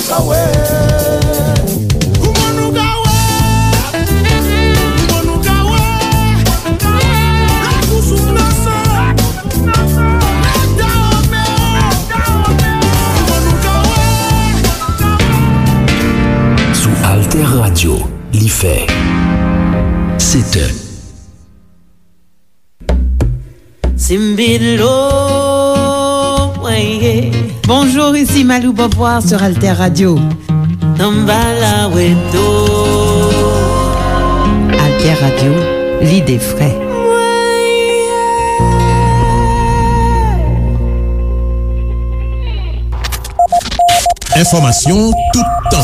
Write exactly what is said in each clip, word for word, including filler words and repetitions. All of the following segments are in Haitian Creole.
Kouman nou ka wè? Kouman nou ka wè? Lakou sou planche. Mèt Dawome. Kouman nou ka wè? Sou Alter Radio, li fè sèt è. Simbilo, weye. Bonjour, ici Malou Beauvoir sur Alter Radio. Tambala Weto. Alter Radio, l'idée vraie. Enfòmasyon toutan.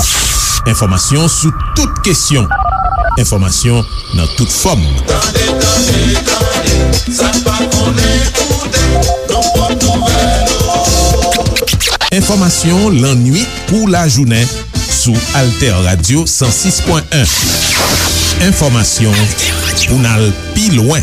Enfòmasyon sou tout kesyon. Enfòmasyon nan tout fòm. Tande, tande, tande, sa n pa konnen koute, nan pòt nouvèl yo. Enfòmasyon lannwit kou lajounen sou Alter Radio san sis pwen en. Enfòmasyon pou n al pi lwen.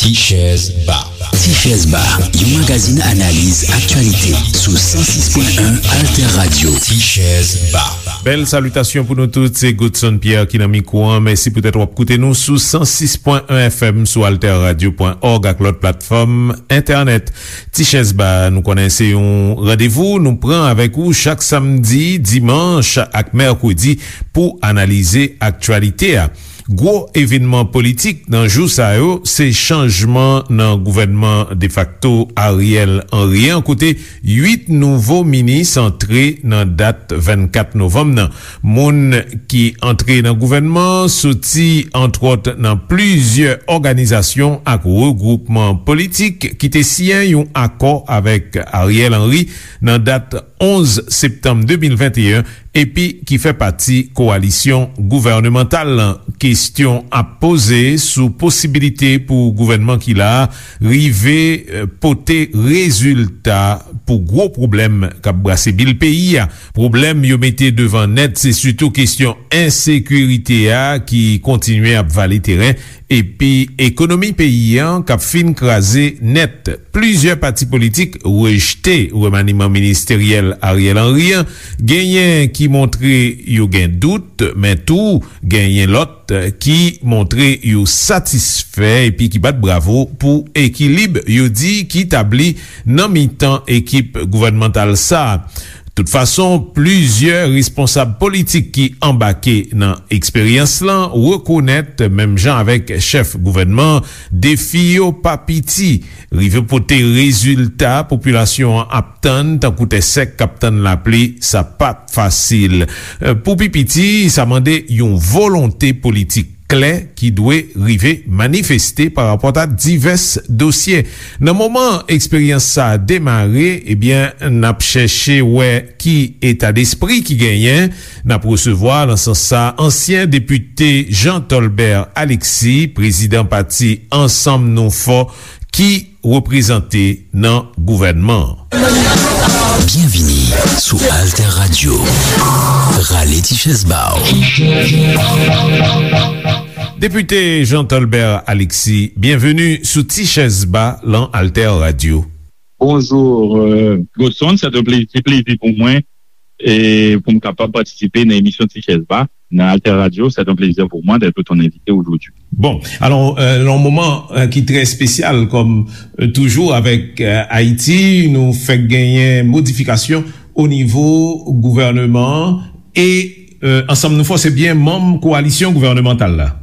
Tichèz Ba. Tichèz Ba, yon magazin analiz aktyalite sou san sis pwen en Alter Radio. Tichèz Ba. Bèl salitasyon pou nou tout, se Godson Pierre ki nan mikwo an. Mèsi poutèt w ap koute nou sou san sis pwen en F M, sou alter radio pwen org ak lòt platfòm entènèt. Tichèz Ba, nou konnen se yon randevou nou pran avèk ou chak samdi, dimanch ak mèkredi pou analize aktyalite a. Gwo evènman politik nan jou sa yo, se chanjman nan gouvènman defakto Ariel Henry an, kote uit nouvo minis antre nan dat vennkat novanm nan. Moun ki antre nan gouvènman an soti, antwòt, nan plizyè òganizasyon ak regwoupman politik ki te siyen yon akò avèk Ariel Henry nan dat onz septanm de mil venteyen, epi ki fè pati kowalisyon gouvènemantal lan. Kesyon ap poze sou posibilite pou gouvènman ki la a rive, eh, pote rezilta pou gwo pwoblèm k ap brase bil peyi a. Pwoblèm yo mete devan nèt, se sitou kesyon ensekirite a ki kontinye ap vale teren, epi ekonomi peyi an k ap fin kraze nèt. Plizyè pati politik rejte remaniman ministeryèl Ariel Henry an. Genyen ki montre yo gen dout, men tou genyen lòt ki montre yo satisfè epi ki bat bravo pou ekilib yo di ki tabli nan mitan ekip gouvènmantal sa a. Tout fason, plizyè responsab politik ki anbake nan eksperyans lan rekonèt, menm jan avèk chèf gouvènman an, defi yo pa piti. Rive pote rezilta popilasyon an ap tann, tankou tè sèk k ap tann lapli, sa p ap fasil. Pou pi piti, sa mande yon volonte politik klè ki dwe rive manifeste pa rapò a divès dosye. Nan moman eksperyans sa a demare, ebyen, n ap chèche wè ki etadespri ki genyen. N ap resevwa, nan sans sa, ansyen depite Jean Tolbert Alexis, prezidan pati Ansanm Nou Fò, ki reprezante nan gouvènman an. Byenvini sou Alter Radio. Rale ti chèz ba w. Depite Jean Tolbert Alexis, byenveni sou Ti Chèz Ba lan Alter Radio. Bonjou, euh, Godson, se yon plezi, se plezi pou mwen e pou m kapab patisipe nan emisyon Ti Chèz Ba nan Alter Radio. C'est un plaisir pour moi d'être ton invité aujourd'hui. Bon, alò, euh, nan yon moman, euh, ki trè espesyal, kòm, euh, toujou avèk, euh, Ayiti, nou fèk genyen modifikasyon o nivo gouvèneman an e, euh, Ansanm Nou Fò se byen manm kowalisyon gouvènemantal la.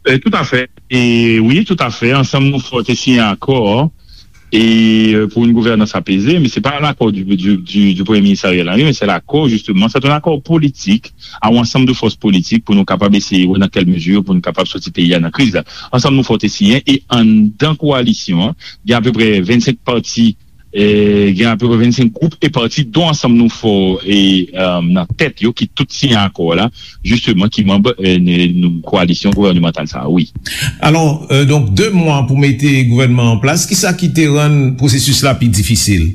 Euh, tout à fait. E wi, tout à fait. Ansanm Nou Fò te siyen akò e, euh, pour une gouvernance apaisée, men se pa lakò du, du, du, du Premye Minis Ariel Henry, men se lakò, jisteman, se yon akò politik a yon ansanm de fòs politik pou nou kapab eseye wè nan kèl mezi pou nou kapab soti peyi a nan kriz la. Ansanm Nou Fò te siyen e anndan kowalisyon an, gen apeprè vennsenk pati, e gen apeprè vennsenk gwoup e pati, dont Ansanm Nou Fò e, euh, nan tèt yo, ki tout siyen akò la, jisteman, ki manm, euh, n-, n-, kowalisyon gouvènemantal sa a, wi. Alò, euh, donk, de mwa pou mete gouvènman an plas, kisa ki te rann pwosesis la pi difisil?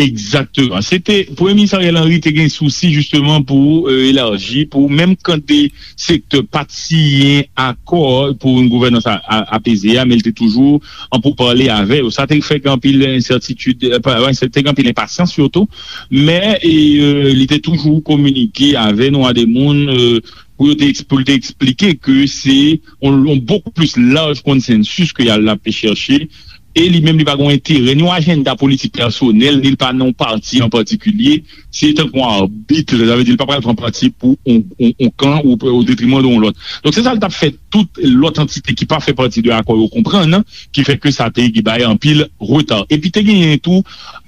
Egzakteman. Se te, Premye Minis Ariel Henry te gen sousi jisteman pou euh, elaji, pou menm kan de sektè pa t siyen akò pou yon gouvènans a- a- apeze a, men li te toujou an poupale avè yo. Sa te fè gen anpil ensètitid, euh, pa- pa ensè- te gen anpil enpasyans sitou, men e, euh, li te toujou kominike avè nou a de moun euh, pou yo te eks- pou l te eksplike ke se yon, yon bokou plis laj konsensis ke y al ap chèche. E li menm li pa gen enterè ni yon ajanda politik pèsonèl, ni l pa nan yon pati an patikilye. Se tankou yon abit, sa vle di li pa pral pran pati pou yon, yon, yon kan ou o detriman de yon lòt. Donk se sa l t ap fè tout lòt antite ki pa fè pati de akò yo konprann, ki fè ke sa te bay anpil reta. Epi te genyen tou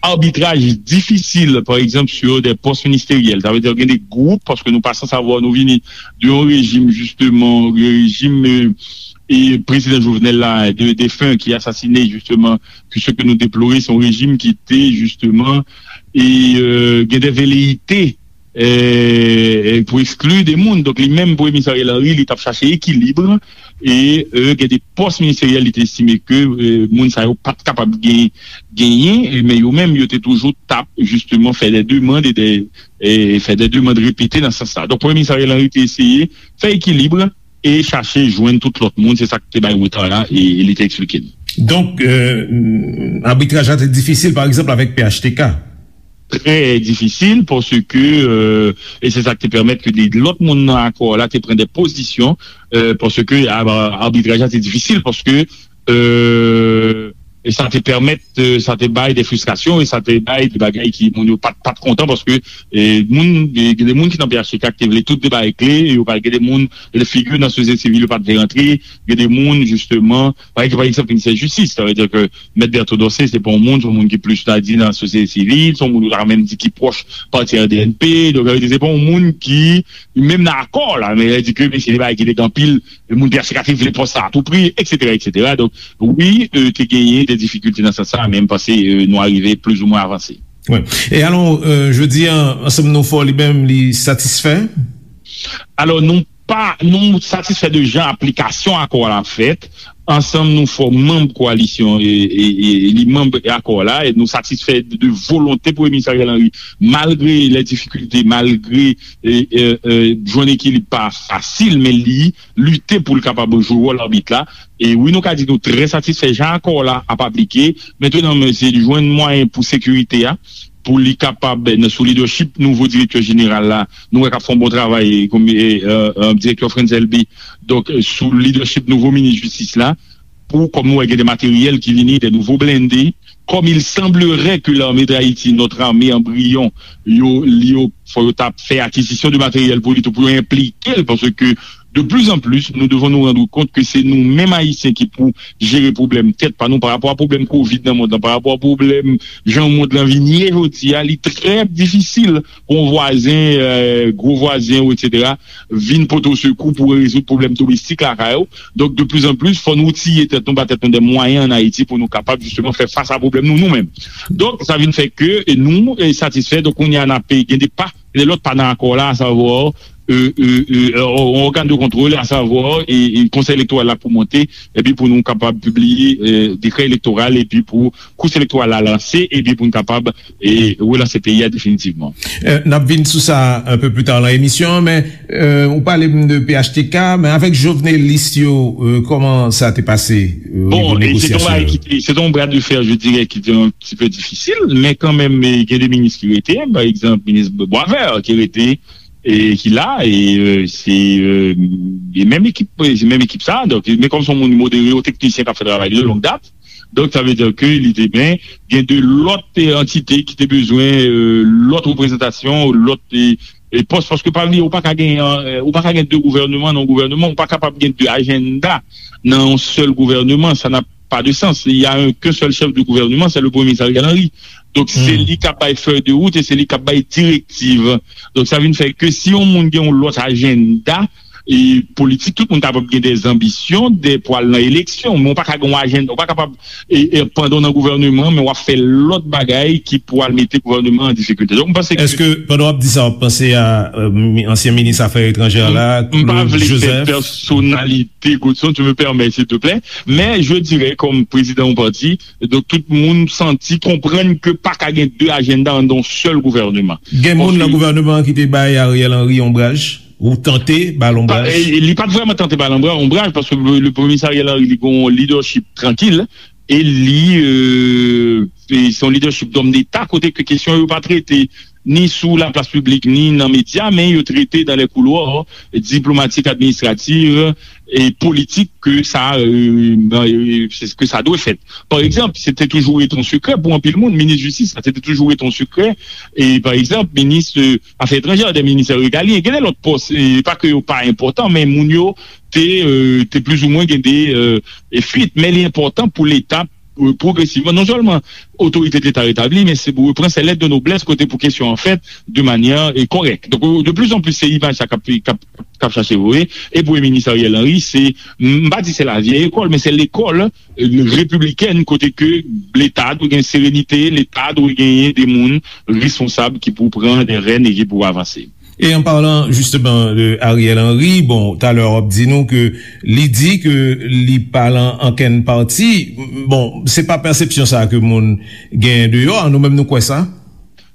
abitraj difisil, pa egzanp, sur des postes ministériels. Sa vle di gen de gwoup, paske nou pa san savwa nou vini de yon rejim, jisteman, rejim euh, e prezidan Jovenel la, de defen ki asasine jisteman, ke se ke nou deplore, se yon rejim ki te jisteman e euh, gen de veleite euh, pou ekskli de moun. Donk li menm, Premye Minis Ariel Henry, li t ap chache ekilib e euh, gen de pòs ministeryèl li te estime ke euh, moun sa yo pa t kapab gen- genyen, e- men yo menm yo te toujou t ap jisteman fè de demann e de e fè de demann repete nan sans sa. Donk Premye Minis Ariel Henry te eseye fè ekilib e chache jwenn tout lòt moun, se sa k te bay reta la e, e li te eksplike n. Donk, euh, abitraj la te difisil, pa egzanp, avèk P H T K. Trè difisil, paske, euh, e se sa k te pèmèt ke de lòt moun nan akò la te pran de pozisyon, euh, paske a- abitraj la te difisil, paske euh, e sa te pèmèt, euh, sa te bay de fristrasyon, e sa te bay de bagay ki moun yo pa t- pa t kontan, paske euh, moun, gen de moun ki nan P H T K ki te vle tout de bagay kle, e yo pa gen de moun, gen de figi nan sosyete sivil yo pa t vle rantre, gen de moun, jisteman, pa egzanp, pa egzanp, minisè jistis, sa vle di ke Mèt Berto Dorcé, se pa yon moun, se yon moun ki plis ta di nan sosyete sivil, se yon moun yo ta menm di ki pwòch pati R D N P, donk, sa vle di, se pa yon moun ki, menm nan akò la, men, sa vle di ke, men se de bagay ki te gen anpil, moun P H T K te vle pòs sa a tou pri, et cetera, et cetera. Donk, wi, euh, te genyen de difikilte nan sans sa, men m panse euh, nou arive plizoumwen avanse. Wi. E alò, euh, jodi a, Ansanm Nou Fò li menm, li satisfè? Alò, nou pa, nou satisfè de jan aplikasyon akò a la fèt. Ansanm Nou Fò manm koalisyon e, e, e li manm akò la, e nou satisfè de, de volonte Premye Minis Ariel Henry, malgre lè difikilte, malgre e, e, e, jwenn ekilib pa fasil, men li lite pou l kapab jwe wòl abit la. E wi, nou ka di nou trè satisfè jan akò la ap aplike. Mentnan, men se li jwenn mwayen pou sekirite a, pou li kapab, nan- sou lidèchip nouvo direktè jeneral la, nou wè k ap fè yon bon travay, kòm e, e, e, direktè Frantz Elbé. Donk, sou lidèchip nouvo minis jistis la, pou, kòm nou wè, gen de materyèl ki vini, de nouvo blende. Comme il semblerait que l'armée d'Haïti, notre armée embryon, yo, yo, fò yo ta fè akizisyon de materyèl pou li tou, pou yo enplike l, paske de plus en plus, nous devons nous rendre compte que c'est nous-mêmes Haïtiens qui pour gérer problème tête pa nou, pa rapò a pwoblèm kovid nan mond lan, pa rapò a pwoblèm jan mond lan vin ye jodi a, li trè difisil pou yon vwazen, euh, gwo vwazen, et cetera, vin pote w sekou pou rezoud pwoblèm domestik lakay ou. Donk, de plus en plus, fò nou tiye tèt nou, ba tèt nou de mwayen an Ayiti pou nou kapab, jisteman, fè fas a pwoblèm nou, nou menm. Donk, sa vin fè ke e nou e satisfè. Donk, kounye a, n ap gen de pa, gen de lòt pa nan akò la, asavwa, e, e, e, e, yon ògàn de kontwòl, asavwa, e, e Konsèy Elektoral la pou monte, epi pou nou kapab pibliye e, dekrè elektoral, epi pou kous elektoral la lanse, epi pou n kapab e, relanse peyi a definitivman. Euh, n ap vin sou sa un peu plus tard nan emisyon an, men euh, ou pale m de P H T K, men avèk jovenelis yo, euh, kòman sa te pase euh, o Bon, nivo e se te yon negosyasyon bagay yo? Ki te, se te yon bras de fer, je dirais, ki te un petit peu difisil, men kanmenm, e, gen de minis ki rete, pa egzanp, minis Boisvert ki rete, e ki la, e euh, se euh, e menm ekip, se menm ekip sa, donk, men kòm se yon moun modere, yon teknisyen k ap fè travay li de longue date, donk, sa vle di ke li te ben gen de lòt e, antite ki te bezwen e, lòt reprezantasyon, lòt e, e pòs, paske pa bliye, ou pa ka gen, e, ou pa ka gen de gouvènman nan yon gouvènman, ou pa kapab gen de ajanda nan yon sèl gouvènman, sa n'a pas de sens. Il y a un, qu'un seul chef de gouvernement, c'est le Premier ministre Ariel Henry. Donk, se Hmm. li k ap bay fèy de wout e se li k ap bay direktiv. Donk, sa vin fè ke si yon moun gen yon lòt ajanda, e politik, tout moun kapab gen de zanbisyon de, pou al nan eleksyon, men w pa ka gen yon ajanda, w pa kapab e, e pandan w nan gouvèneman, men w ap fè lòt bagay ki pou al mete gouvèneman an difikilte. Donk, m panse ke Èske, pandan w ap di sa, w ap panse a, euh, mi- ansyen minis afè etranjè la, M pa Claude vle fè Joseph? Pèsonalite, Godson, tu me permets, s'il te plaît, mais je dirais, comme président yon pati, donk, tout moun santi, konprann ke pa ka gen de ajanda anndan yon sèl gouvèneman. Gen moun nan Paske gouvèneman an ki te bay Ariel Henry onbraj? Ou tante ba l Pa- onbraj? e, Li pa t vrèman tante ba l onbra- onbraj, paske le, le Premye Minis Ariel Henry, li gen yon leadership trankil, e li, euh, e se yon leadership d'homme d'État, kote ke kesyon yo pa trete ni sou laplas piblik, ni nan medya, men yo trete dans les couloirs diplomatiques, administratifs et politiques que ça, euh, euh, c'est ce que ça doit être. Par exemple, c'était toujours été un secret pour anpil moun, minis jistis, sa, c'était toujours été un secret. E, par exemple, minis, euh, afè etranjè, de ministè regalyen, gen de lòt pòs, e pa ke yo pa enpòtan, men moun yo te, euh, te plizoumwen gen de, euh, e fuit, men li enpòtan pou Leta, euh, pwogresivman, non sèlman otorite Leta retabli, men se pou repran sèlèt de noblès kote pou kesyon an fèt de manyè, e, kòrèk. Donk, euh, de plus en plus, se imaj sa k ap, k ap, k ap chache voye. E Premye Minis Ariel Henry, se, m pa di se la vieille école, men se lekòl, euh, repibliken, kote ke Leta dwe gen serenite, Leta dwe genyen de moun responsab ki pou pran de rèn e ki pou avanse. E an palan jisteman de Ariel Henry, bon, talè w ap di nou ke li di ke li pa lan ankenn pati. Bon, se pa pèsepsyon sa ke moun genyen deyò a, nou menm nou kwè sa?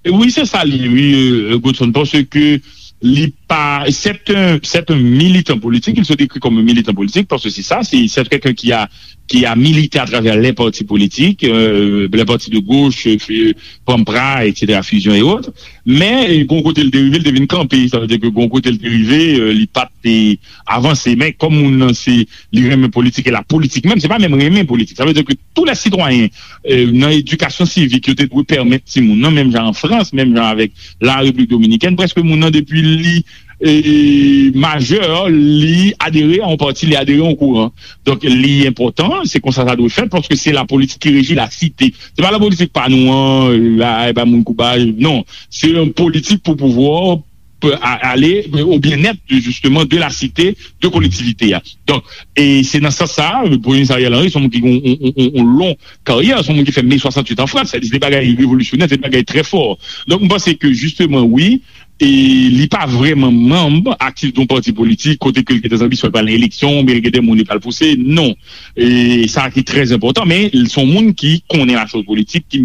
Wi, se sa li, wi, euh, Godson, paske li pa, c'est un, c'est un militant politique, il se décrit comme un militant politique, parce que c'est ça, c'est, c'est quelqu'un qui a, qui a milité à travers les partis politiques, euh, les partis de gauche, euh, Pampra, et cetera, Fusion et autres. Men, euh, gon kote l te rive, l te vin kanpe, sa vle di ke gon kote l te rive, euh, li pa te avanse. Men kòm moun nan se, li renmen politik, e la politik menm, se pa menm renmen politik. Sa vle di ke tou lè sitwayen, euh, nan edikasyon sivik, yo te dwe pèmèt timoun nan, menm jan an Frans, menm jan avèk la Repiblik Dominikèn, prèske moun nan depi li, e, majè, li adere a yon pati, li adere a yon kouran. Donk, li enpòtan, se konsa sa dwe fèt, paske se la politik ki reji la site. Se pa la politik pa nou an, la, e pa moun koubaj, non. Se yon politik pou pouvwa, pou a- ale o byennèt de, justement, de la cité, de kolektivite a. Donk, e se nan sans sa, Premye Minis Ariel Henry, se yon moun ki gen yon, yon, yon, yon long karyè, se yon moun ki fè Me swasanntuit an Frans, se de bagay revolisyonè, se de bagay trè fò. Donk, m panse ke, justement, wi, e li pa vrèman manm aktif de yon pati politik, kote ke l gen de zanbisyon, l pral nan eleksyon, oubyen l gen de moun li pral pouse, non. E sa ki trè enpòtan, men se yon moun ki konnen la chose politique, ki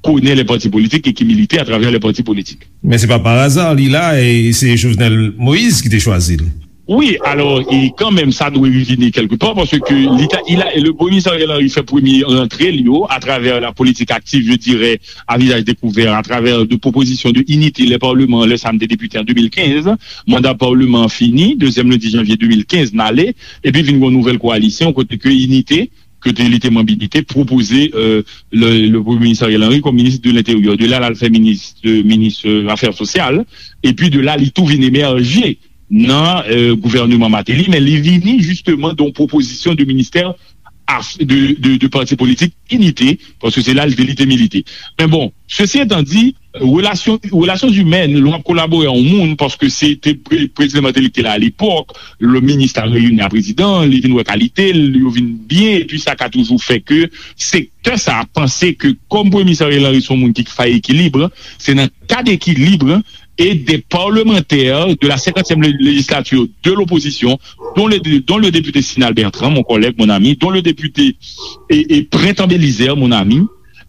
konnen les partis politiques et qui milite à travers les partis politiques. Men se pa pa aza li la, e se Jovenel Moïse ki te chwazi l. Wi, alò, e kanmenm, sa dwe revini kèlke pa, paske li ta, il a, le Premye Minis Ariel Henry fè premye rantre li yo atravè la politik aktif, je dirais, à visage découvert, à travers de propositions de Unité, les parlements, lè sa m te depite an de mil kenz, manda palman an fini, dezyèm lendi janvye de mil kenz, n ale, epi vin gen yon nouvèl koalisyon, kote ke Unité, kote li te manm Unité, pwopoze, euh, le, le Premye Minis Ariel Henry kòm minis de l'Intérieur. De la, l al fè minis, de, minis, euh, afè sosyal, epi de la, li tou vin emèje nan, euh, gouvèneman Martelly, men li vini jisteman de yon pwopozisyon de ministè af- de, de, de pati politik Inite, paske se la li te, li te milite. Men bon, sesi etan di, relasyon, relasyon imèn, lè w ap kolabore a yon moun, paske se te pre- prezidan Martelly ki te la alepòk, le minis la reyini a prezidan, li vin wè kalite l, yo vin byen, epi sa ka toujou fè ke sektè sa a panse ke kòm Premye Minis Ariel Henry se yon moun ki fè ekilib, se nan kad ekilib et des parlementaires de la cinquantième lé- législature de l'opposition, dont le, dont le député Sinal Bertrand, mon collègue, mon ami, dont le député et, et Printemps Belizaire, mon ami,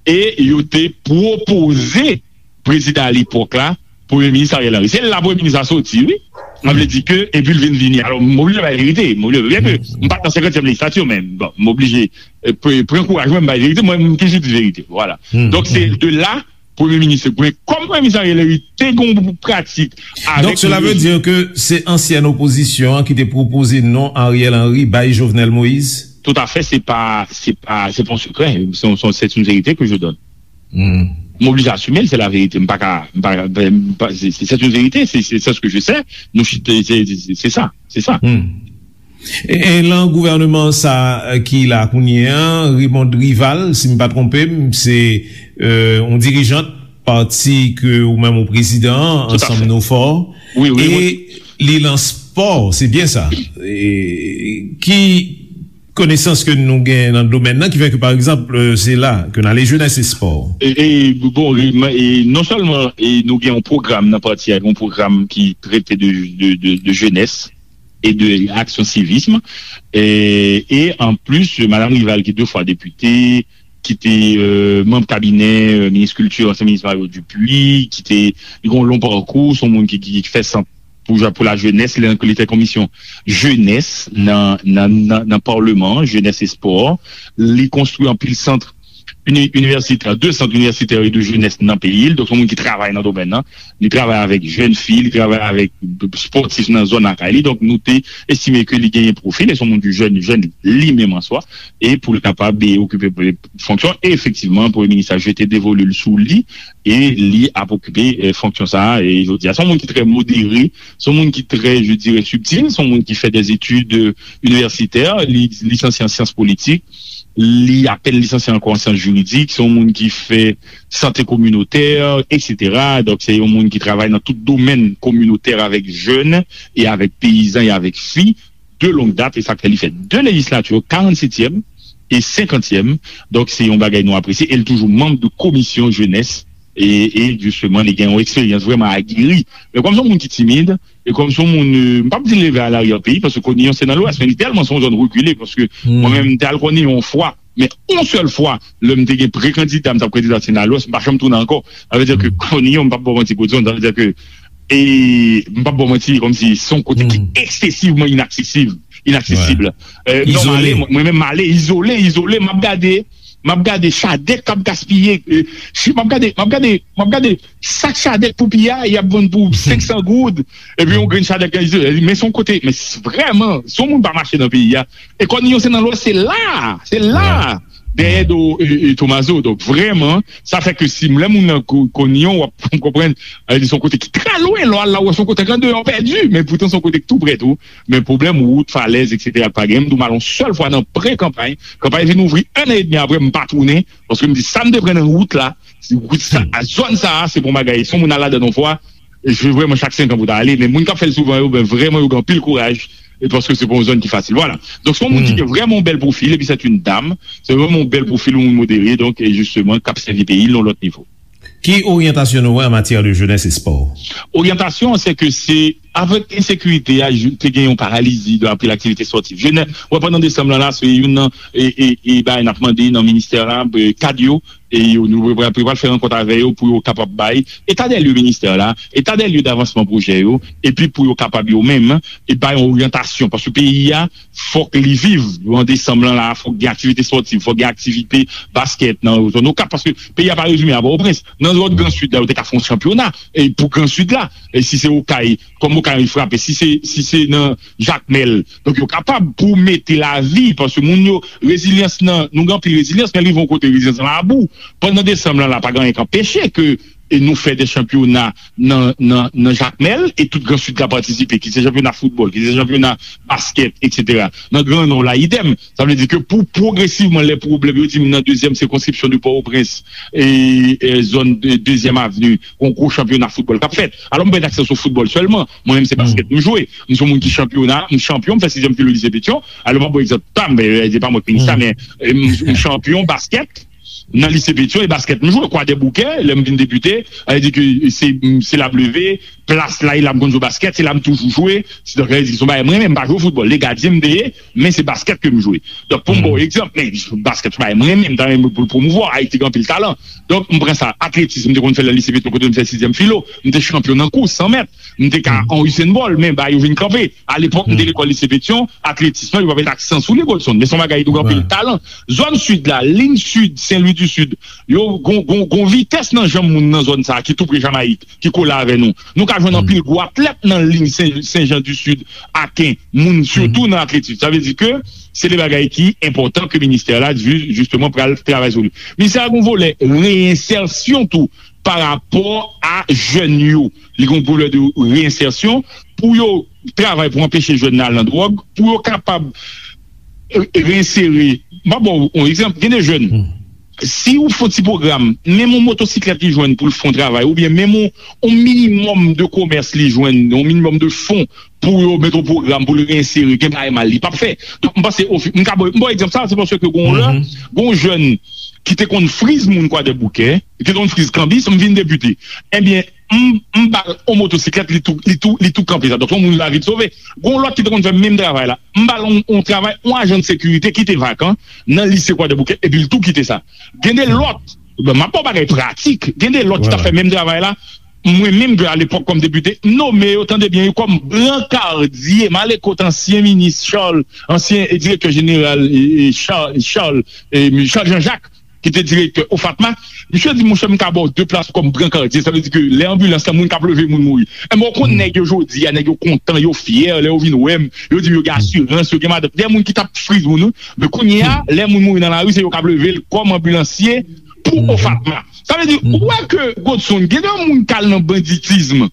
e yo te pwopoze prezidan alepòk la, Premye Minis Ariel Henry. Se la Premye Minis la soti, wi. Sa vle di ke, epi l vin vini. Alò, m oblije bay verite. M oblije, byen ke m pa t nan senkantyèm lejislati, men, bon, m oblije, e, pre- pran kouraj mwen, m bay verite, mwen, m toujou di verite. Vwala. Donk, se de la, Premye Minis, kòm Premye Minis Ariel Henry te gen yon pratik avèk Donk, cela veut dire que se ansyen opozisyon an ki te pwopoze non Ariel Henry bay Jovenel Moïse? Tout à fait, se pa, se pa, se pa yon sekrè. Se yon, se yon, c'est une vérité que je donne. M oblije asime l, se la verite. M pa ka, m pa, m pa, se, se, c'est une vérité, c'est, c'est, c'est ce que je sais. Nou chita, se, se, se, se sa, se sa. E, e lan gouvèneman sa, euh, ki la kounye an, Raymonde Rival, si m pa twonpe m, se, euh, yon dirijant pati ke ou menm ou prezidan an, Tout à Ansanm fait. Nou Fò. Wi, wi, E wi. Li lans Spò, se byen sa. E, ki konesans ke nou gen nan domèn nan ki fè ke, pa egzanp, se la ke n ale, jenès e spò? E, e, bon, e, e non sèlman e nou gen yon pwogram nan pati a, yon pwogram ki trete de, de, de, de jenès e de aksyon sivism. E, e an plis, madanm Rival ki de fwa depite, ki te euh, manm kabinè euh, minis kilti, ansyen minis Mario Dupuy, ki te li gen yon long pakou, se yon moun ki, ki, ki fè sant pou, pou la jenès, li, li te komisyon jenès nan, nan, nan, nan palman, jenès e spò. Li konstwi anpil sant uni- inivèsitè, de sant inivèsitè e de jenès nan peyi l. Donk, se yon moun ki travay nan domèn nan. Li travay avèk jèn fi, li travay avèk spòtif nan zòn lakay li. Donk, nou te estime ke li genyen pwofil, e se yon moun ki jèn, jèn li menm an swa, e pou l kapab e, okipe fonksyon. E efektivman, premye minis la jete devolu l sou li, e li ap okipe e, fonksyon sa a. E jodi a, se yon moun ki trè modere, se yon moun ki trè, je dirais, subtil, se yon moun ki fè des études euh, universitaires, li lisansye an syans politik, li apèn lisansye ankò an syans jiridik, se yon moun ki fè sante kominotè, etsetera. Donk, se yon moun ki travay nan tout domèn kominotè avèk jèn e avèk peyizan e avèk fi de long dat, e sa k fè li fè de lejislati, karannsetyèm e senkantyèm. Donk, se yon bagay nou apresye. E l toujou manm de komisyon jenès. E, e jisteman, li gen yon eksperyans vrèman ageri. Men kòm se yon moun ki timid, e kòm se yon moun, euh, m p ap di leve a laryè peyi, paske Konyon se nan Lwès, men li tèlman se yon zòn rekile, paske mwen menm, m te al Konyon yon fwa, men yon sèl fwa, lè m te gen pre-kandida, m t ap kandida se nan Lwès, m pa janm tounen ankò. Sa vle di ke Konyon, m p ap ba w manti, Godson, sa vle di ke e m p ap ba w manti, kòmsi se yon kote ki eksesivman inaksesib, inaksesib. Euh, non, m ale, mwen menm m ale, izole, izole, m ap gade, m ap gade chadèk k ap gaspiye, euh, si m ap gade, m ap gade, m ap gade sak chadèk pou piya, y ap vann pou senk san goud, epi yon grenn chadèk, men se yon kote, men vrèman, si yon moun pa mache nan peyi a, e Konyon se nan Lwès, se la, se la, dèyè do e, e Tomazo. Donk, vrèman, sa fè ke si lè moun nan Konyon, w ap konprann, li se yon kote ki trè lwen, lè w al la, w wè se yon kote k andeyò pèdi, men poutan se yon kote ki tou prè tou. Men pwoblèm wout, falèz, etsetera, pa gen. M di w, m al yon sèl fwa nan pre-kanpay. Kanpay vin ouvri en an edmi apre, m pa tounen. Paske m di, sa m te pran nan wout la, wout sa, zòn sa a, se pa yon bagay. Si yon moun al ladan yon fwa, e se vrèman chak senk an pou w ta ale. Men moun k ap fè l souvan yo, ben vrèman, yo gen anpil kouraj. E paske se pa yon zòn ki fasil. Vwala. Donk, se yon moun ki gen vrèman yon bèl pwofil, epi se yon dam. Se vrèman yon bèl pwofil, yon moun modere, donk, e jisteman, k ap sèvi peyi l nan yon lòt nivo. Ki oryantasyon nou wè an matyè de jenès e spò? Oryantasyon an, se ke se avèk ensekirite a, te gen yon paralizi de apre laktivite spòtif. Jenès, wè, pandan desanm lan la, se youn nan e, e, e bagay n ap mande nan ministè la, e, kad yo, e yo, nou pral, pral fè rankont avè yo pou yo kapab bay eta dè lye ministè la, eta dè lye davansman pwojè yo, epi pou yo kapab yo menm, e bay yon oryantasyon, paske peyi a, fòk li viv. An desanm lan la, fòk gen aktivite spòtif, fòk gen aktivite baskèt nan zòn Okap, paske peyi a pa rezime a Pòtoprens. Nan zòn Gran Sid la, yo te ka fè yon chanpyona e pou Gran Sid la. E si se Okay, kòm Okay frape, si se, si se nan Jakmèl, donk yo kapab pou mete lavi, paske moun yo, rezilyans nan, nou gen anpil rezilyans, men rive yon kote rezilyans lan abou. Pandan desanm lan la, pa gen anyen k anpeche ke e nou fè de chanpyona nan, nan, nan Jakmèl, e tout Gran Sid ka patisipe, ki se chanpyona foutbòl, ki se chanpyona baskèt, etsetera. Nan Gran Nò la, idèm. Sa vle di ke pou pwogresivman, lè pwoblèm, yo di m nan dezyèm sikonskripsyon de Pòtoprens, e, e zòn de dezyèm avni, yon gwo chanpyona foutbòl k ap fèt. Alò, m pa gen aksè sou foutbòl sèlman. Mwen menm, se baskèt m jwe. M se yon moun ki chanpyona, m chanpyon, m fè sizyèm filo lise Petyon. Alò, m ap ba w egzanp pa m, e, e pa mwen k minis la, men e, m, m chanpyon baskèt nan lise Petyon, e baskèt m jwe. Kwadèboukè, lè m vin depite, sa vle di ke se, se la m leve, plas la, e la m konn jwe baskèt, se la m toujou jwe. Se, donk, sa vle di se yon bagay m renmen, m pa jwe foutbòl, e gadyen m te ye, men se baskèt ke m jwe. Donk, pou m ba w egzanp, men baskèt se yon bagay m renmen, m ta renmen pou l pwomouvwa, Ayiti gen anpil talan. Donk, m pran sa, atletis, m te konn fè l nan lise Petyon kote m fè sizyèm filo, m te chanpyon nan kous san mèt, m te ka an Usain Bolt, men bagay yo vin kanpe. Alepòk, m te lekòl lise Petyon, atletis lan, yo pa met aksan sou li, Godson, men se yon bagay ki gen anpil talan. Zòn sid la, liy sid, Sen Lwi di Sid, yo gon, gon, gon vitès nan janm moun nan zòn sa a ki tou pre Jamayik, ki kole avè nou. Nou ka jwenn anpil gwo atlèt nan liy Sen, Sen Jan di Sid, Aken, moun sitou nan atletis. Sa vle di ke se de bagay ki enpòtan ke ministè la, ju-, jisteman, pral travay sou li. Ministè a gon volè reyensèsyon tou pa rapò a jèn yo. Li gon volè de reyensèsyon pou yo travay pou anpeche jèn nan al nan dwòg, pou yo kapab e, e, reyensere. M ap ba w yon egzanp, gen de jèn. si ou fè yon ti pwogram, menm yon motosiklèt li jwenn pou l fè yon travay, oubyen menm yon, yon minimòm de komès li jwenn, yon minimòm de fon pou yo met yon pwogram pou l reinsere, gen bagay mal li p ap fè. Donk, m panse, ofi-, m ka ba, m ba w egzanp sa, se paske gon lè, gon jèn ki te konn friz moun Kwadèboukè, ki te konn friz kanbis, m vin depite. Ebyen, m, m ba l yon motosiklèt, li tou, li tou, li tou kanpe sa. Donk, yon moun lavi l sove. Gon lòt ki te konn fè menm travay la. M ba l yon, yon travay, yon ajan de sekirite ki te vakan nan lise Kwadèboukè, epi l tou kite sa. Gen de lòt, bon, m ap ba w bagay pratik, gen de lòt ki t ap fè menm travay la. Mwen menm, ke alepòk kòm depite, m nome yo, tande byen, yo kòm brankadye, m ale kot ansyen minis Charles, ansyen, e, direktè jeneral, e, e, Charles, Charles, e, Charles Jean-Jacques, ki te direktè OFATMA, misye di, monchè, m ka ba w de plas kòm brankadye. Sa vle di ke lè anbilans lan, moun k ap leve moun mouri. Enben, w konn nèg yo jodi a, nèg yo kontan, yo fyè, lè yo vin wè m, yo di m yo gen asirans, yo gen madanm. Gen moun ki t ap friz moun, wi. Men kounye a, lè moun mouri nan lari, se yo k ap leve l kòm anbilansye pou OFATMA. Sa vle di, ou wè ke, Godson, gen de moun k al nan banditism,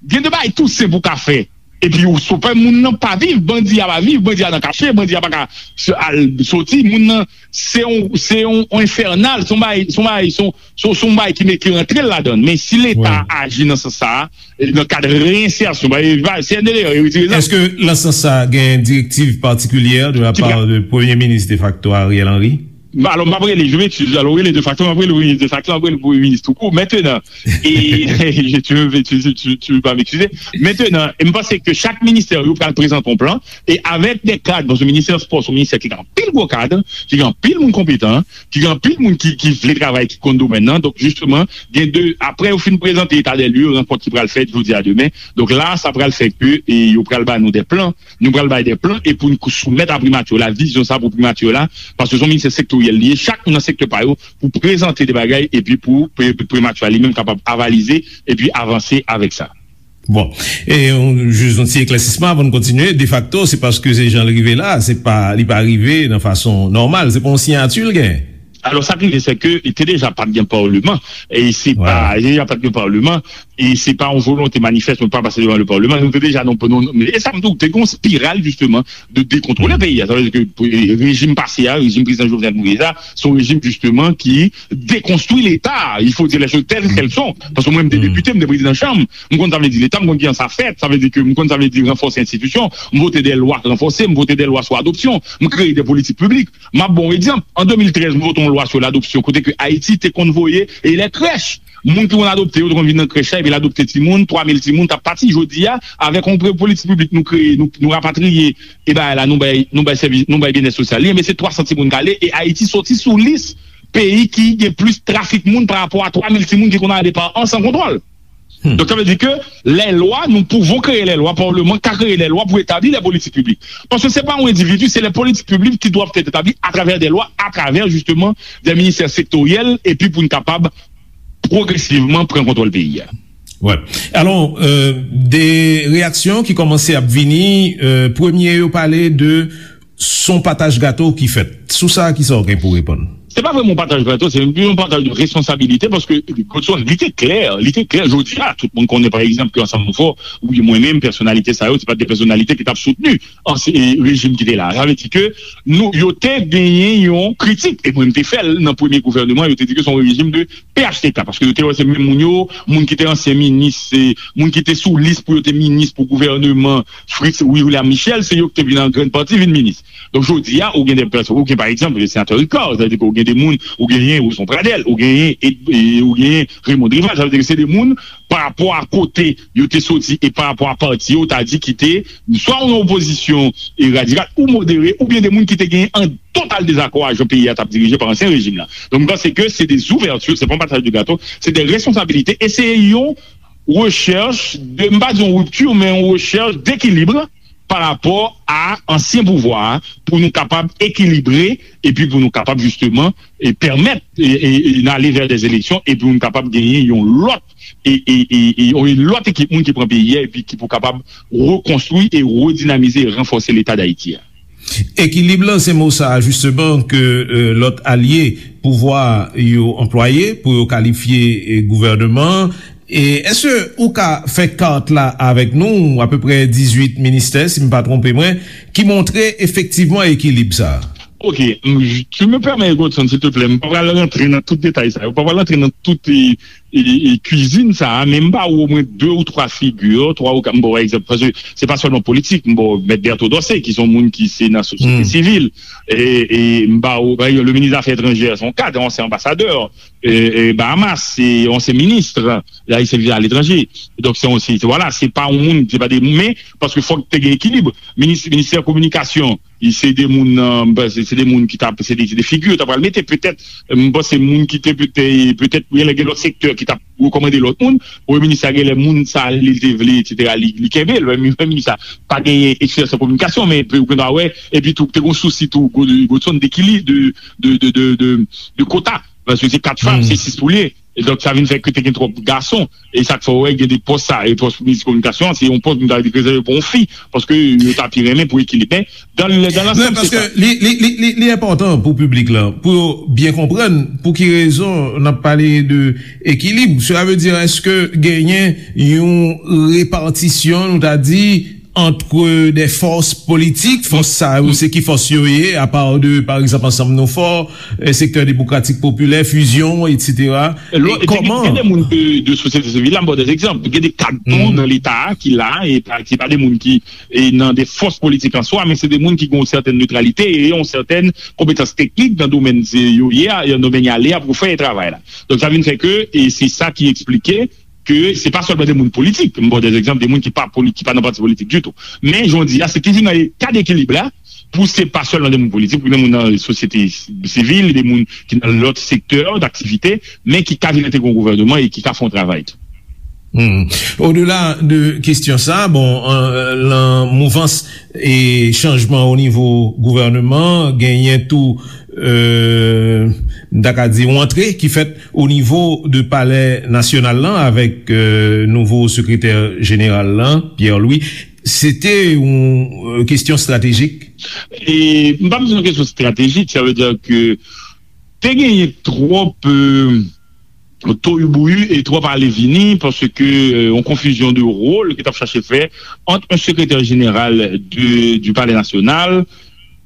gen de bagay tou senp ou ka fè. Epi ou sopè moun nan pa viv, bandi a pa viv, bandi a nan kache, bandi a pa ka s-, al soti, moun nan se yon, se yon, yon enfènal, se yon bagay, se yon bagay, se yon, se yon, se yon bagay ki met, ki rantre l ladan l. Men si Leta aji nan sans sa a, nan kad reyensèsyon, ba, e, ba, C N D D yo retire zam. Èske nan sans sa a gen direktiv patikilyè de la pa de Premye Minis defakto Ariel Henry? Alò, m p ap rele, je m'excuse, alò, rele defakto, m ap rele premye defakto, m ap rele premye minis toukou. Mentenan, e, tu, tu, tu, tu vas m'excuser. Mentenan, e m panse ke chak ministè yo pral prezante yon plan, e avèk de kad, paske ministè spò se yon ministè ki gen anpil gwo kad, ki gen anpil moun konpetan, ki gen anpil moun ki, ki vle travay, ki konn domèn nan. Donk, jisteman, gen de, apre yo fin prezante eta dè lye, rankont ki pral fèt jodi a demen. Donk la, sa pral fè ke, e, yo pral ba nou de plan, nou pral bay de plan, e pou n soumèt a primati la, vizyon sa pou primati la, paske se yon ministè sektoryèl li ye, chak moun nan sektè pa yo, pou prezante de bagay, epi pou pri-, primati a li menm kapab avalize, epi avanse avèk sa. Bon, e yon, jis yon ti eklèsisman avan n kontinye. Defakto, se paske se jan l rive la, se pa, li pa rive nan fason nòmal, se pa yon siyati l gen. Alò, sa k rive, se ke li te deja pa t gen palman, e se pa, li te deja pa t gen palman, e se pa yon volonte manifès pou l pa pase devan le palman. Nou te deja nan, nan, e sa m di w, te gen yon espiral, jisteman, de dekontwole peyi a. Sa vle di ke, e, rejim pase a, rejim prezidan Jovenel Moïse la, se yon rejim, jisteman, ki dekonstwi Leta. Il faut dire les choses telles qu'elles sont. Paske mwen, m te depite, m te prezidan chanm. M konn sa vle di Leta, m konn kijan sa fèt. Sa vle di ke m konn sa vle di ranfòse enstitisyon. M vote de lwa ranfòse, m vote de lwa sou adopsyon. M kreye de politik piblik. M ap ba w egzanp. An de mil trèz, m vote yon lwa sou ladopsyon, kote ke Ayiti te konn voye e lè krèch. Moun ki konn adopte yo te konn vin nan krèch la, epi l adopte timoun, twa mil timoun t ap pati. Jodi a, avèk yon pre-, politik piblik nou kreye, nou, nou rapatriye, e bagay la, nou bay, nou bay sèvis, nou bay byennèt sosyal li, men se twa san timoun k ale, e Ayiti soti sou lis peyi ki gen plis trafik moun pa rapò a twa mil timoun ki konn ale pa an san kontwòl. Donk, sa vle di ke lè lwa, nous pouvons créer les lois, palman ka kreye lè lwa pou etabli lè politik piblik. Paske se pa yon endividi, se lè politik piblik ki dwèt etabli atravè de lwa, atravè, jisteman, de ministè sektoryèl, epi pou n kapab pwogresivman pran kontwòl peyi a. Wè. Alò, euh, de reyaksyon ki kòmanse ap vini, euh, premye yo pale de s on pataj gato ki fèt. Sou sa, kisa w gen pou reponn? Se pa vrèman yon pataj gato, se yon pataj de responsabilite, paske, Godson, li te klè, li te klè, jodi a, tout moun konnen, pa egzanp, ke Ansanm Nou Fò, oubyen mwen menm, pèsonalite sa yo, se pa de pèsonalite ki t ap soutni an, se, e, rejim ki te la. Sa vle di ke nou, yo te genyen yon kritik, e mwen, m te fè l nan premye gouvènman, yo te di ke se yon rejim de P H T K, paske yo te wè se menm moun yo, moun ki te ansyen minis, se moun ki te sou lis pou yo te minis pou gouvènman Fritz William Michel, se yo ki te vin an grann pati vin minis. Donk, jodi a, ou gen de pèsòn, ou gen, pa egzanp, senatè Ricard, sa vle di ke ou gen de moun, ou genyen Roson Pradel, ou genyen, e, e, ou genyen Raymond Rival, sa vle di ke se de moun, pa rapò a kote yo te soti e pa rapò a pati yo, ta di ki te swa yon opozisyon, e, radikal ou modere, oubyen de moun ki te genyen an total dezakò a jan peyi a t ap dirije pa ansyen rejim la. Donk, m panse ke se de zouvèti, se pa yon pataj de gato, se de responsabilite, e se yon rechèch de, m pa di yon ripti, men yon rechèch dekilib pa rapò a ansyen pouvwa a, pou nou kapab ekilibre, epi pou nou kapab jisteman, e, pèmèt, e, e, e, n ale vè dè eleksyon, epi pou nou kapab genyen yon lòt, e, e, e, e, yon lòt ekip moun ki pran peyi a, epi ki pou kapab rekonstwi e redinamize e ranfòse Leta Dayiti a. Ekilib lan, se mo sa a, jisteman, ke, e, lòt alye pouvwa yo anplwaye pou yo kalifye, e, gouvènman an. E èske ou ka fè kat la avèk nou, apeprè dizuit ministè, si m pa twonpe mwen, ki montre efektivman ekilib sa a? Ok, m, tu me permets, Godson, silteplè, m pa pral rantre nan tout detay sa yo, m pa pral rantre nan tout e, e, e, kwizin sa a, men m ba ou omwen de ou twa figi, twa ou kat, m ba w egzanp, paske se pa sèlman politik, m ba w Mèt Berto Dorcé, ki se yon moun ki se nan sosyete sivil, e, e m ba ou, pa egzanp, le minis zafè etranjè, se yon kad, ansyen anbasadè, e, e, Bahamas, se ansyen minis, la, li sèvi aletranje. Donk, se yon, se, se, vwala, se pa yon moun, se pa de, men, paske fòk te gen ekilib. Minis, ministè kominikasyon, se de moun, euh, se de moun ki t ap, se de, se de figi yo t ap pral mete, petèt, m panse moun ki te petèt, petèt, gen lè gen lòt sektè ki t ap rekòmande lòt moun, premye minis la gen lè moun sa li te vle, etsetera, li, li kenbe l, menm, menm minis la pa genyen eksperyans an kominikasyon, men ou gen dwa wè, epi tou, te gen sousi tou, Godson, dekilib, de, de, de, de, de, de kota, paske se kat fanm, se sis poulye, e donk sa vin fè ke te gen twòp gason, e sa k fè w wè gen de pòs sa, e pòs minis kominikasyon, se yon pòs nou ta di rezève pou yon fi, paske yo ta pi renmen pou ekilib, men dan, dan lansam, se sa. Li, li, li, li, li enpòtan pou piblik la, pou yo byen konprann pou ki rezon n ap pale de ekilib. Sela vle di, èske genyen yon repatisyon, nou ta di, ant de fòs politik, fòs sa yo, se ki fòs yo ye, apa de, pa egzanp, Ansanm Nou Fò, eh, Sektè Demokratik Popilè, Fusion, etsetera. Lò, e gen, kòman gen de moun de, de sosyete sivil la, m ba w de egzanp. Gen de kad tou nan Leta a ki la, e pa, ki pa de moun ki e nan de fòs politik an swa, men se de moun ki gen yon sètèn netralite e yon sètèn konpetans teknik nan domèn se yo ye a, nan domèn y ale a pou fè travay la. Donk, sa vin fè ke, e se sa ki eksplike ke se pa sèlman de moun politik, m ba w de egzanp, de moun ki pa poli-, ki pa nan pati politik ditou. Men, jan w di a, se toujou nan kad ekilib la, pou se pa sèlman de moun politik, pou de moun nan sosyete sivil, de moun ki nan lòt sektè daktivite, men ki ka vin entegre yon gouvènman e ki ka fè yon travay tou. Hmm. Odela de kesyon sa, bon, an, lan mouvans e chanjman o nivo gouvènman, genyen tou, euh, m ta ka di, yon antre ki fèt o nivo de Palè Nasyonal lan avèk, euh, nouvo sekretè jeneral lan, Pierre Louis. Se te yon, euh, kesyon estratejik? E, m pa bezwen kesyon estratejik, sa vle di ke te genyen twòp, euh, toyibouyi e twòp ale vini, paske, euh, yon konfizyon de wòl ki t ap chache fè ant yon sekretè jeneral de, du Palais National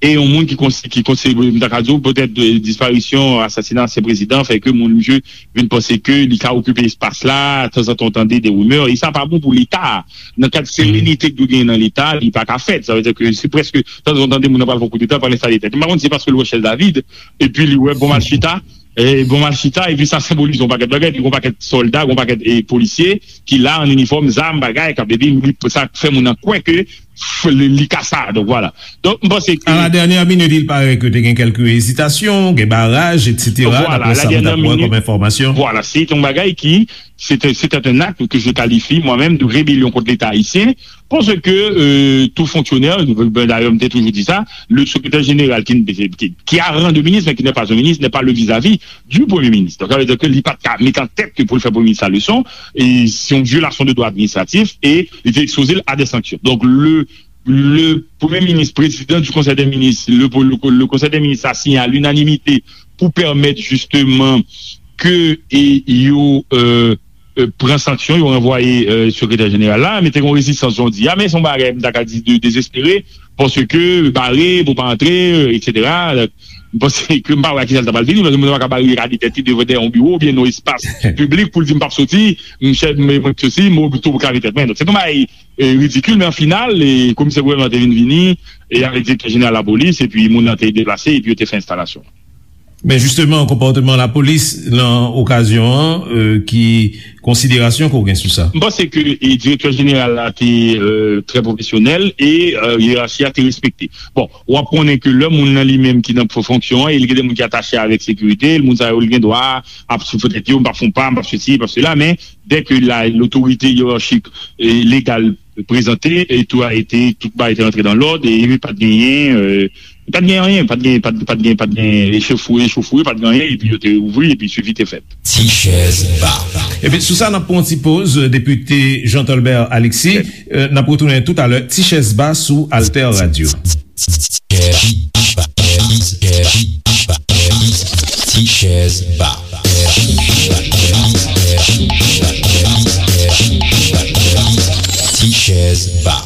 e yon moun ki konsi-, ki konsidere, m ta ka di w, petèt, euh, disparisyon, asasina ansyen prezidan fè ke moun, misye vin panse ke li ka okipe espas la, tanzantan w tande de rimè, e sa pa bon pou Leta a. Nan kad serenite ki dwe genyen nan Leta, li pa ka fèt. Sa vle di ke se prèske, tanzantan w tande moun nan pral fè yon koudeta, pral enstale tèt. M pa konn si se paske l wè chèz la vid, epi li wè bon m al chita, e bon m al chita, epi sa senbolize yon pakèt bagay, epi yon pakèt sòlda, yon pakèt, e, polisye ki la an inifòm, zam, bagay, k ap, epi li, sa fè moun nan kwè ke f-, li, li ka sa. Donk, vwala. Donk, m panse ke à la dernière minute, il paraît que te gen kèlke ezitasyon, gen baraj, etsetera, vwala, daprè sa nou t ap wè kòm enfòmasyon. Vwala, se yon bagay ki, se te, se te un acte que je qualifie moi-même de rébellion contre l'État haïtien, paske, euh, tout fonctionnaire, ben, dayè, m te toujou di sa, le secrétaire général qui, qui, qui a rang de ministre, mais qui n'est pas un ministre, n'est pas le vis-à-vis du Premier ministre. Donk, sa vle di ke li pa t ka mete an tèt ke pou l fè Premye Minis la leson, e se yon vyolasyon de dwa administratif, e li te ekspoze l a de sanksyon. Donk, le, le Premye Minis, prezidan du Conseil des ministres, le, le, le Conseil des ministres a signé à l'unanimité pou pèmèt jisteman ke, e, yo, euh, euh, pran sanksyon, yo ranvwaye, euh, sekretè jeneral la, men te gen rezistans, jan w di a, men se yon bagay, m ta ka di, de dezespere, paske bare, pou pa antre, euh, etsetera. M panse ke m pa wè a kisa l ta pral vini, paske moun nan pa ka barikade tèt li devan dèyè yon biwo, oubyen nan espas piblik pou l di, "M p ap soti, m chèf, m, mwen k soti, m oblije tou krave tèt mwen." Donk, se te yon bagay, euh, ridikil, men an final, e komisè gouvènman te vin vini, e avèk direktè jeneral lapolis, epi moun nan te deplase, epi yo te fè enstalasyon. Men jisteman, konpòteman lapolis lan okazyon an, euh, ki konsiderasyon ke w gen sou sa? M panse ke, e, direktè jeneral la te, euh, trè pwofesyonèl e, euh, yerachi a te respekte. Bon, w ap konnen ke lè moun nan li menm ki nan fonksyon an, e li gen de moun ki atache avèk sekirite, moun sa yo, li gen dwa ap soufle tèt yo, "M p ap fè yon pa, m p ap sesi, m p ap sela," men dè ke la, lotorite yerachik e legal prezante, e tout a été, tout bagay te rantre dans l'ordre, e pa t genyen, euh, pa t genyen anyen, pa t genyen, pa t, pa t genyen, pa t genyen echofouye, echofouye, pa t genyen anyen, epi yo te ouvri, epi swivi te fèt. Ti chèz ba. Epi sou sa, n ap pran yon ti poz, Depite Jean Tolbert Alexis. Euh, n ap retounen toutalè, Ti chèz ba sou Alter Radio. Ti chèz ba. Ti chèz ba.